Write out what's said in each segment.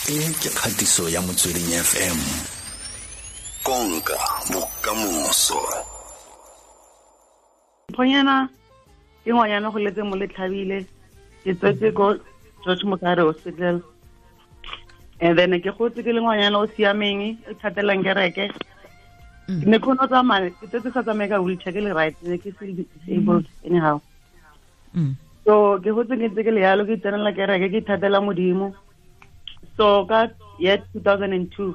E ke kgatiso ya Motsweding FM. Konka bokamoso. Mphonyana ke ngwanyana go letse mo letlhabile, ke tswetse ko George Mokare Hospital. And then ke gotse ke le ngwanyana o siameng, o thatelang kereke. Ke ne kgone go tsamaya, ke tsetse sa tsamaye ka wheelchair, ke le right, ne ke se disabled anyhow. So ke gotse ke ntse ke le yalo, ke tsenela kereke, ke ithatela Modimo. So ka year 2002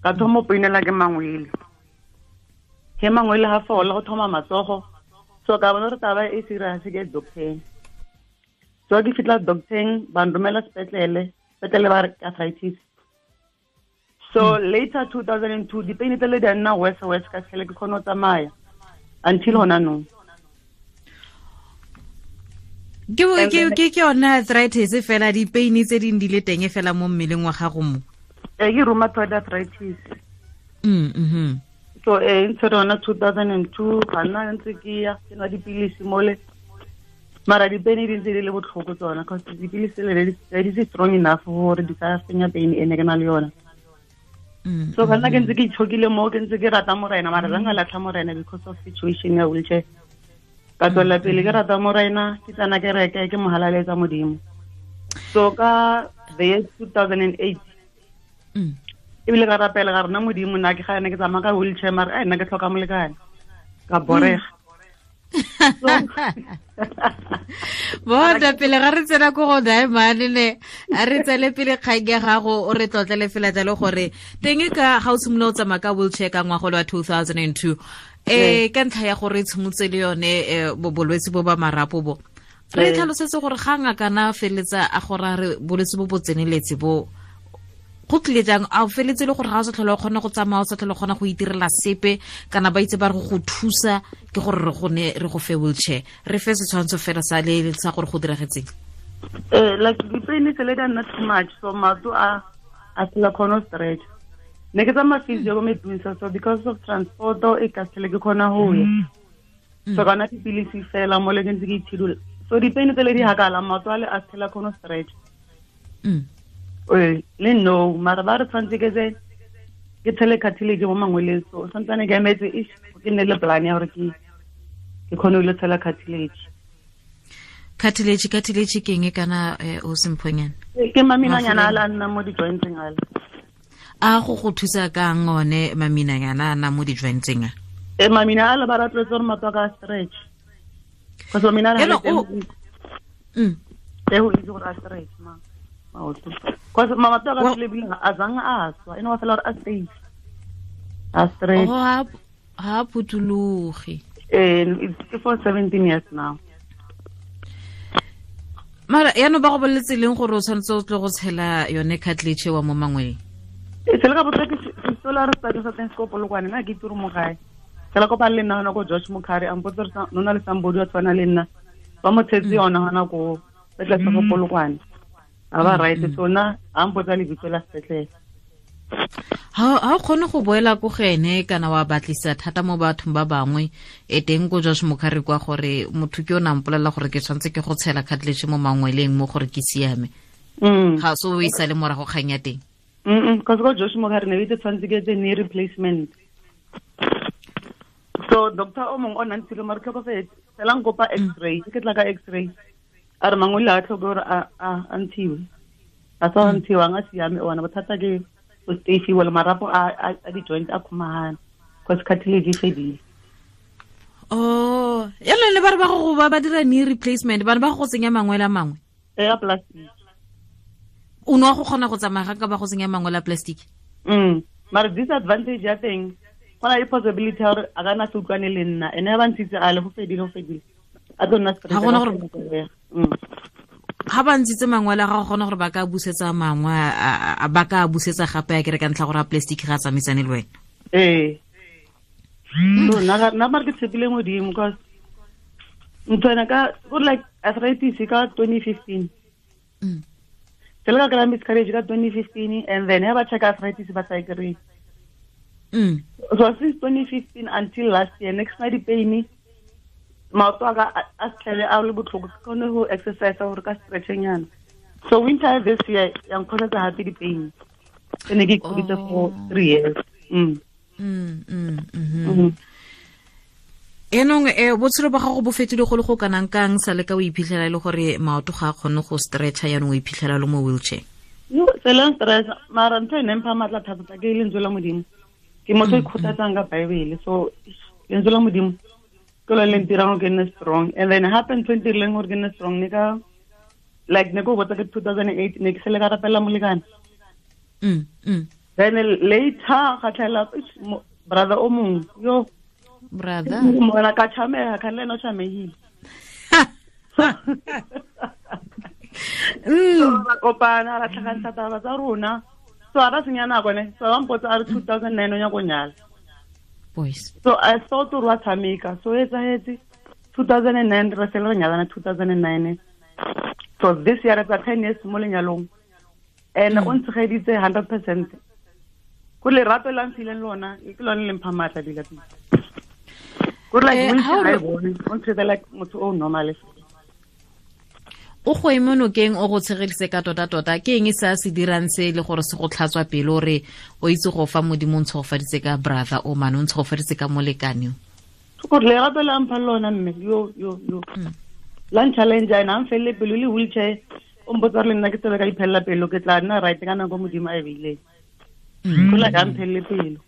ka thoma go painela ke mangwele. He mangwele ha fola go thoma matsogo. So ka bona gore taba e serious, ke doctor. So ke fitla doctor, ba nromela sepetlele, sepetlele ba re arthritis. So later 2002 dipain tsele di a nna worse worse ka tlhele ke kgone go tsamaya until hona nou. Ke yone arthritis fela, dipain tse ding di le teng fela mo mmeleng wa gago mo. Ke rheumatoid arthritis. So ntse rona 2002 ga nna ntse ke ya ke nwa dipilisi mole. Mara dipain di ntse di le botlhoko tsona, cause dipilisi le di se strong enough gore di ka fenya pain e ne ke na le yona. So ga nna ke ntse ke itshokile mo, ke ntse ke rata Morena, mara ga nka latlha Morena because of situation ya wheelchair. Ka tswela pele ke rata Morena, ke tsena kereke, ke mo halaletsa Modimo. So ka the year 2008, ebile ka rapela ga rena Modimo, nna ke ga ene ke tsamaya ka wheelchair, mara ai nna ke tlhoka molekane. Ka borega. Bona pele ga re tsena ko go Diamond ne, a re tsele pele kgang ya gago, o re tlotlele fela jalo gore teng ka ga o simolola o tsamaya ka wheelchair ka ngwaga wa 2002, ka ntlha ya gore tshimotse le yone bolwetse bo ba marapo bo. Re tlhalosetse gore ga ngaka na feletsa a gore a re bolwetse bo bo tseneletse bo go tlile jang, a o feletse le gore ga o sa tlhole o kgona go tsamaya, o sa tlhole o kgona go itirela sepe, kana ba itse ba re go thusa ke gore re go ne re go fe wheelchair. Re fe setshwantsho fela sa le sa gore go diragetseng. Like dipain tse le di nna too much, so maoto a sela kgona go stretch. Ne ke tsamaya physio ko Medunsa, so because of transport e ka sele ke kgona go ya. So ka nwa dipilisi fela mo le ke ntse ke itshidula. So dipain tse le di hakala, maoto a le a sela kgona go stretch. Le no, mara ba re tshwanetse ke tse ke tshele cartilage mo mangweleng, so santsane ke emetse ish ke nne le plan ya gore ke kgone go tshela cartilage. Cartilage, cartilage ke eng kana o semphonyana? Ke maminanyana a le a nna mo di-jointseng ale. A go go thusa kang one maminanyana a nna mo di-jointseng a? Mamina a le ba rotloetsa gore maoto a ka stretch. Because mamina a le Hello, teng o-. E go itse gore a stretch ma maoto. Because maoto a ka Well tlile ebile a zang a swa, e no ba fela gore a safe. A stretch. Oh, ha phuthuloge. It's for 17 years now. Mara yaanong ba go boleletse leng gore o tshwanetse o tle go tshela yone cartilage wa mo mangweleng? Sele ka botsa ke sola re study sa teng se ko Polokwane, nna ke itse gore mo gae. Sele kopa le nna hona ko George Mukhari, a mpotsa gore no na le somebody wa tshwana le nna. Ba mo tshetse yona hona ko sepetlele sa ko Polokwane. A ba right, so nna a mpotsa lebitso la sepetlele. Ha o kgone go boela ko go ene kana wa batlisa thata mo bathong ba bangwe e teng ko George Mukhari kwa gore motho ke o na mpolelela gore ke tshwanetse ke go tshela cartilage mo mangweleng mo gore ke siame. Ga so o e sale morago kgang ya teng. Because ko George Mukhari ne itse tshwanetse ke etse knee replacement. So doctor o mongwe o nna ntshile mare tlhokofetse, fela nkopa x-ray, ke tla ka x-ray. A re mangwele a tlhoke gore a ntshiwe. A sa ntshiwang a siame ona, bothata ke go stay-iwa le marapo a di-joint a khumagana, cause cartilage e fedile. Oh, yalo le ba re ba go ba dira knee replacement, bana ba go tsenya mangwele a mangwe. A plastic. O no go kgona go tsamaya ga ka ba go tsenya mangwele a plastic? Mara disadvantage ya teng, go na le possibility ya gore a ka nna se utlwane le nna, ene a ba ntshitse a le go fedile, go fedile. A tlo nna straight Ha gona ka gore tsela ya. Ha ba ntshitse mangwele a gago, gona gore ba ka busetsa mangwe, ba ka busetsa gape a kere ka ntlha gore a plastic ga a tsamaisane le wena. Ee. So, nna mare ke tshepile Modimo, cause ntho ena ka, go like arthritis ka 2015. Ke le ka kry-a miscarriage ka 2015, and then ha ba check arthritis ba sa e kry-e. So since 2015 until last year, next night di-pain, maoto a ka a tlhele a le botlhoko, ke kgone go exercise gore ka stretch-nyana. So winter this year ya nkgosetsa gape di-pain tse ne ke ikhuditse for 3 years. Enong botshelo ba gago bo fetile go le go kanang kang sa le ka o iphitlhela e le gore maoto ga a kgone go stretcha, yaanong o iphitlhela le mo wheelchair? Yo, seleng stress mara ntho e neng mpha maatla thata ke lentswe la Modimo. Ke motho o ikgothatsang ka Bible, so lentswe la Modimo ke lone le ntirang gore ke nne strong. And then gape ntho e ntirileng gore ke nne strong ne ka like ne ko botsa ke 2008 ne ke sele ka rapela molekane. Then later ga tlhaela brother o mongwe yo brother mona ka tshamega ka le ena o tshamegile. So ra kopana ra tlhakantsha taba tsa rona. So a ra senya nako ne, so ba mpotsa a re 2009 o nyaka go nyala. Boys. So I thought gore wa tshameka, so e etsahetse 2009 re sele re nyalana 2009. So this year it's 10 years mo lenyalong. And o ntshegeditse 100%. Go lerato la mphileng lona, ke lone le mpha maatla dila pele. Go like wheelchair ga e bone, o ntshegeditse like motho o normal. O go eme nokeng o go tshegeditse ka tota-tota, ke eng se a se dirang se le gore se go tlhatswa pelo gore o itse go fa Modimo o ntshegofaditse ka brother o mane, o ntshegofaditse ka molekane o? Gore lerato la mpha lona mme, yo, yo, yo. La nchallenge ena, a mfelele pelo le wheelchair, o mpotsa gore le nna ke tsebe ka iphelela pelo, ke tla nna right ka nako Modimo a e beileng. Go la ka mphelele pelo.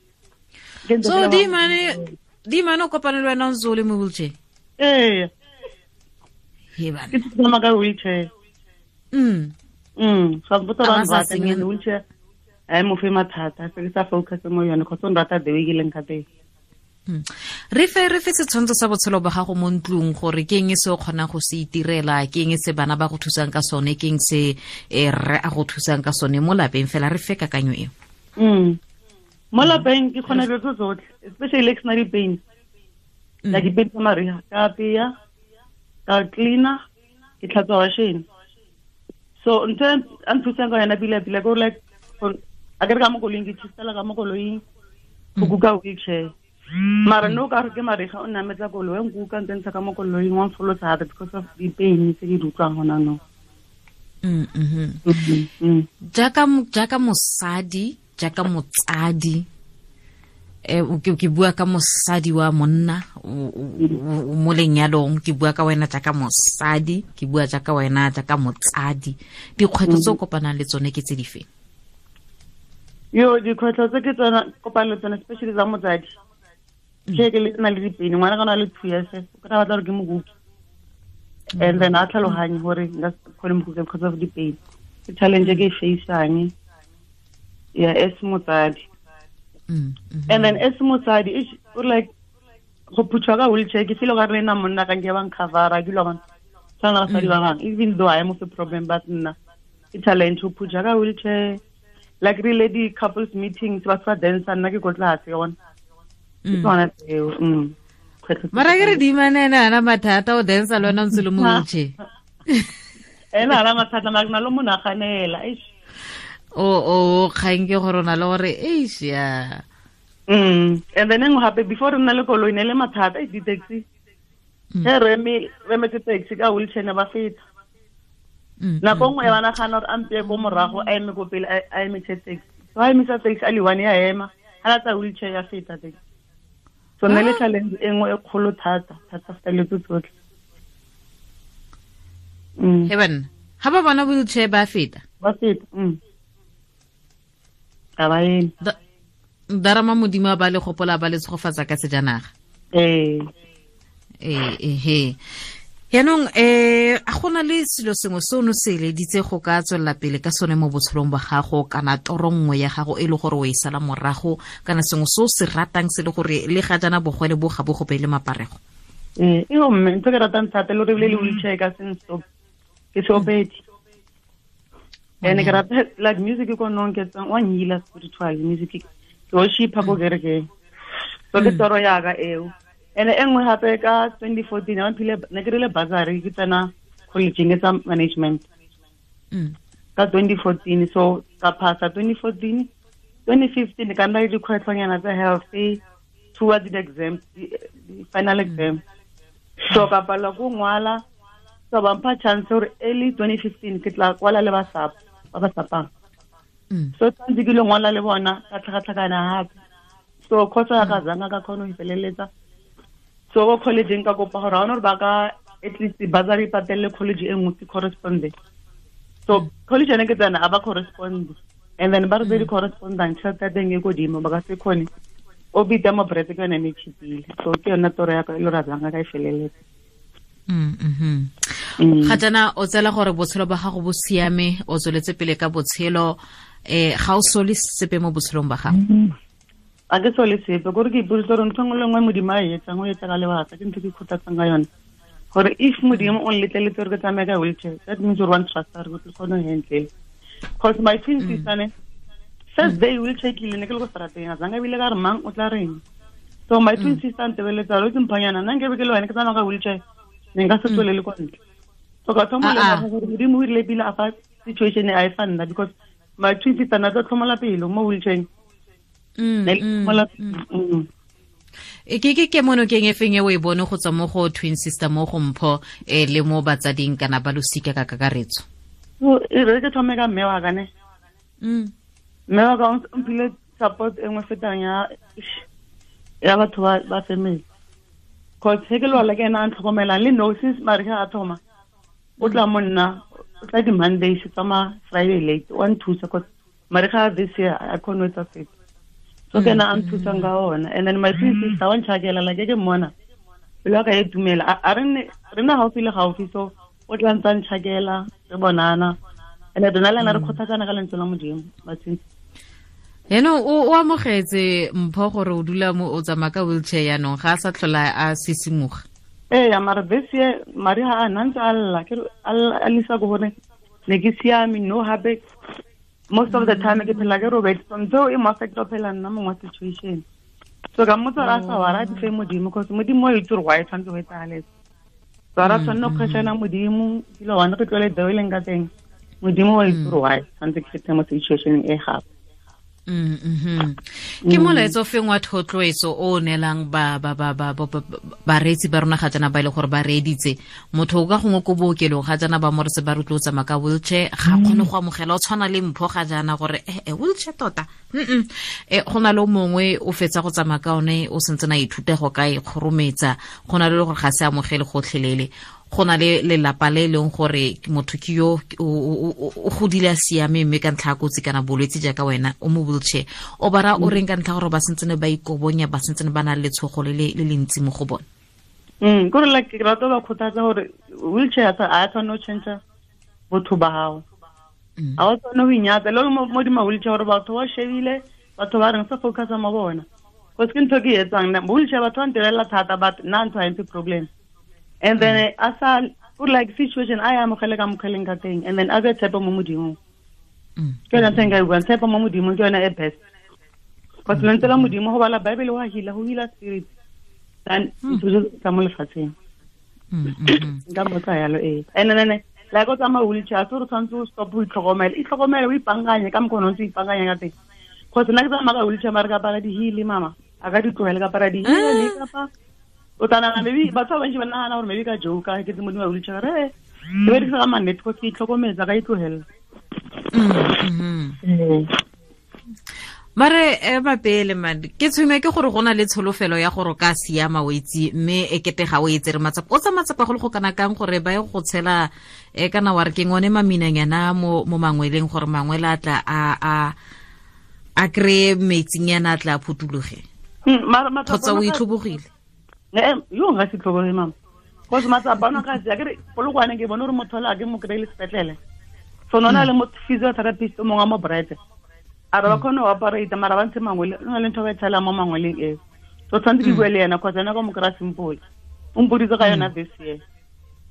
Ke ntse So, ke Dimane o kopane le wena o ntse o le mo wheelchair? Ee. He bana. Ke tsamaya ka wheelchair. So mpotsa A ba ba sa nrata, senyeng. ke wheelchair. A e mo fe mathata, se ke sa focus mo yone, kgotsa o nrata the way ke leng ka teng. Re fe setshwantsho sa botshelo ba gago mo ntlong gore ke eng se o kgonang go se itirela, ke eng se bana ba go thusang ka sone, ke eng se rre a go thusang ka sone mo lapeng fela, re fe kakanyo eo. Mo lapeng ke kgona dilo tse tsotlhe, especially ke sena di-pain. Like di-pain tsa mariga, ka apeya, ka cleaner, ke tlhatswa washene. So ntho e a nthusang ka yona pila pila ke gore like, a ke re ka mo koloing, ke tshistela ka mo koloing, go kuka wheelchair. Mara no ka re ke mariga o nametsa koloi, o nkuka ntse ntsha ka mo koloing, wa mfolosa gape because of di-pain tse ke di utlwang gona nou. Jaaka mosadi, jaaka motsadi, ke bua ka mosadi wa monna, o mo lenyalong, ke bua ka wena jaaka mosadi, ke bua jaaka wena jaaka motsadi. Dikgwetlho tse o kopanang le tsone ke tse dife? Yo, dikgwetlho tse ke tsona kopanang le tsone, especially tsa motsadi. Ke ke le na le dipene, ngwana ka na le 2 years, o ka batla gore ke mo kuke. And then a tlhaloganye gore nka se kgone mo kuke because of di-pain. Ke challenge e ke e face-ang ya as motsadi. And then as motsadi, o like go phuthwa ka wheelchair, ke feel gore le nna monna ka nke ba ncover-a, ke lo bona. Tshwana le basadi ba bangwe, even though I am a problem, but nna ke challenge go phuthwa ka wheelchair. Like really di couples meetings, ba sa dance, nna ke ko tlase yona. Ke tsona tseo, Kgwetlho tse Mara ke re teng. Dimane ene ana mathata, o dance le wena o ntse le mo wheelchair. Ene ana mathata, mara ke na le mo naganela, eish. O kgang ke gore o na le gore, eish, ya. And then engwe gape, before re nna le koloi, ne le mathata, eish, di-taxi. Ge re emetse taxi ka wheelchair ne ba feta. Nako nngwe ba nagana gore a mpeye ko morago, a eme ko pele, a emise taxi. So a emisa taxi, a le one ya ema, ha latsa wheelchair ya feta taxi. So ne le challenge e nngwe e kgolo thata, thata feta le tse tsotlhe. He banna, ha ba bona wheelchair ba feta? Ba feta, Ga ba eme. Darama Modimo a ba le gopola, ba le tshegofatsa ka sejanaga. Ee. He. Yaanong, a gona le selo sengwe se o ne o se eleditse go ka tswelela pele ka sone mo botshelong ba gago, kana toro nngwe ya gago e le gore o e sala morago, kana sengwe se o se ratang se le gore le ga jaana bogwele bo ga bo go beele maparego? Ee, e mme ntho ke ratang thata le gore ebile le wheelchair ka seng stop, ke seopedi. And ke rata like music ko nong ke tsang wa nyila spiritual music, ke worship ko kerekeng. So ke toro ya ka eo. And e nngwe gape ka 2014, ne ke ne ke rile bursary, ke tsena college-eng e tsa management. Ka 2014, so ka phasa 2014, 2015 ka nna le dikgwetlhonyana tsa health towards the exam, the final exam. So ka palelwa ko ngwala, So ba mpha chance gore early 2015 ke tla kwala le ba SAP, ba ba sapang. So tshwanetse ke lo ngwala le bona ka tlhakatlhakana gape. So course ya ka zanga ka kgona go e feleletsa. So ko college ka kopa gore ga ona gore ba ka at least bursary patelle college e nngwe ke correspondent. So college ene ke tsena a ba correspond, and then ba re di correspondent tšhelete ya teng e kodimo ba ka se kgone o bita mo brete ke yone e cheapile. So ke yone toro ya ka e le gore a zanga ka e feleletsa. Ga jaana o tsela gore botshelo ba gago bo siame, o tsweletse pele ka botshelo, ga o sole sepe mo botshelong ba gago? A ke sole sepe, kore ke ipoditse gore ntho nngwe le nngwe Modimo a e etsang, o etsa ka lebaka, ke ntho ke ikgothatsang ka yone. Gore if Modimo o nletleletse gore ke tsamaye ka wheelchair, that means gore wa ntrust-a gore ke kgone go handle. Because my twin sister ne, first day wheelchair ke ile ne ke le ko strateng, a zanga ebile ka re mang o tla reng. So my twin sister ntebeletsa gore o itse mphanyana, nna nkebe ke le wena ke tsamaya ka wheelchair, ne nka se tswelele kwa ntle. So ka thoma go lemoga gore Modimo o rile pele a fa situation e a e fa nna, because my twin sister na tla tlhomola pelo mo wheelchair. E ke mono keng e feng e o e bone go tswa mo go twin sister mo go Mpho, le mo batsading kana ba losika ka kakaretso? So, e re ke thome ka mme wa ka ne. Mme wa ka o mphile support e nngwe fetang ya batho ba family. Cause he ke lwala ke ena a ntlhokomelang, le no since mare ge a thoma, o tla mo nna, o tla di Mondays, o tsamaya Friday late, wa nthusa cause mare ga this year a kgone ho etsa sepe. So ke ena a nthusang ka ona. And then my twin sister wa ntšhakela, like ke mmona, pelo ya ka e dumela. A re nne, re nna gaufi le gaufi, so o tla ntsa ntšhakela, re bonana. And then rona le ena re kgothatsana ka lentswe la Modimo, my twin sister. Yaanong o amogetse Mpho gore o dula mo, o tsamaya ka wheelchair yaanong, ga a sa tlhola a sisimoga? Ee, mara this year, mari ha a na ntse a lla, ke re, a lla, a lisa ko gore ne ke siame, no hape. Most of the time ke phela ke robetse, so ntho e mo affect ho phela nna mongwe wa situation. So ka mmotsa gore a sa wara, a di fe Modimo, cause Modimo o itse gore why tshwanetse go etsagale. So a ra tshwanela go questiona Modimo, dilo one re tlwele the way e leng ka teng. Modimo o itse gore why tshwanetse ke fete mo situation e gape. Ke molaetsa o feng wa thotloetso o neelang bareetsi ba rona ga jaana ba e le gore ba reeditse? Motho o ka gongwe ko bookelong ga jaana ba mo re se ba rotloetsa tsamaya ka wheelchair, ga kgone go amogela, o tshwana le Mpho ga jaana gore, wheelchair tota. Go na le o mongwe o fetsa go tsamaya ka one, o sentse na ithuta go ka e kgorometsa, go na le gore ga se amogele gotlhelele. Go na le lelapa le e leng gore motho ke yo o godile a siame, mme ka ntlha ya kotsi kana bolwetse jaaka wena o mo wheelchair, o bara o reng ka ntlha gore ba sentse ne ba ikobonya, ba sentse ne ba na le letshogo le le ntsi mo go bone? Kore like ke rata ba kgothatsa gore wheelchair a tshwanne go change botho ba gago. A o tshwanne go inyatsa le mo di ma wheelchair gore batho ba shebile, batho ba reng sa focus mo bona. Cause ke ntho ke e etsang nna, wheelchair batho ba ntebelela thata, but nna ntho ha e mphe problem. And then a sa, o like situation a ya amogele ka mokgweleng ka teng, and then a be tshepo mo Modimong. Ke yona ntho e nka e buang, tshepo mo Modimong ke yona e best. Cause lentswe la Modimo go bala Bible wa healer, go healer spirit. Then ntho tsa mo lefatsheng. Nka mmotsa yalo, ee. And then, like o tsamaya wheelchair, so re tshwanetse o stop ho itlhokomela. Itlhokomele, o ipankanye ka mokgwa o ntse o ipankanya ka teng. Cause nna ke tsamaya ka wheelchair, mare ka apara di-heel, mama. A ka di tlohele, ka apara di-heel, le kapa o tla nagana maybe batho ba bantsi ba nagana gore maybe ka joke, ke tse modimo wa wheelchair, re, ke berekisa ka mannete, cause ke itlhokometse, ka itlohela. Mare, mapele, man, ke tshwenywa ke gore go na le tsholofelo ya gore o ka siama o itse, mme e kete ga o e tsere matsapa. O tsa matsapa go le go kana kang gore ba ye go tshela, kana wa re ke ngone maminanyana mo mangweleng gore mangwele a tla a kry-e metsinyana a tla a phuthuloge? Mara matsapa Kgotsa o ona ka itlhobogile? Yo nka se tlhoboge, mama. Cause matsapa ona ka tseya, ke re, Polokwane ke bone gore motho ole a ke mo kry-e le sepetlele. So nona le motho physiotherapist o mongwe wa mo Brete. A re ba kgone go operate, mara ba ntshe mangwele, o na le ntho ba e tshelang mo mangweleng eo. So tshwanetse ke bue le ena, cause ena ka mo kry-a simple. O mpoditse ka yona this year.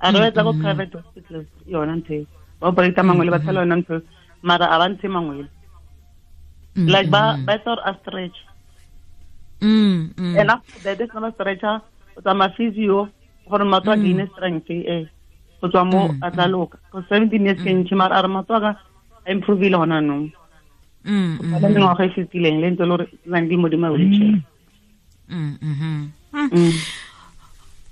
A re ba etsa ko private hospital yona ntho eo. Ba operate mangwele, ba tshela yona ntho eo, mara a ba ntshe mangwele. Like ba etsa gore a stretch. And after that, it's not a stretcher, o tsamaya physio, gore maoto a gain strength, go tswa mo a tla loka. Go 17 years ke ntšhi, mara a re maoto a ka a improve-ile gona anong. Go tshwana le mengwaga e fetileng, le ntse le gore nang di modimo a wheelchair.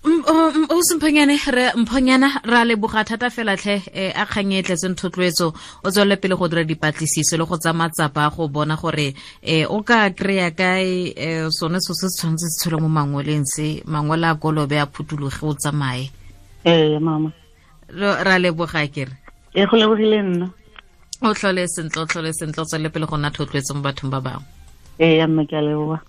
O semphonyane re mphonyana ra leboga thata fela tlhe eh, a kgang e tletseng thotloetso. O tswelele pele go dira dipatlisiso le go tsa matsapa go bona gore eh, o ka kry-a kae eh, sone so se se tshwanetse se tshwele mo mangweleng se mangwele a kolobe a phuthuloge o tsamaye. Ee mama, ra leboga kere. E go lebogile nna. O tlhole sentle, o tlhole sentle, o tswelele pele go nna thotloetso mo bathong ba bangwe. Ee mme, ke a leboga.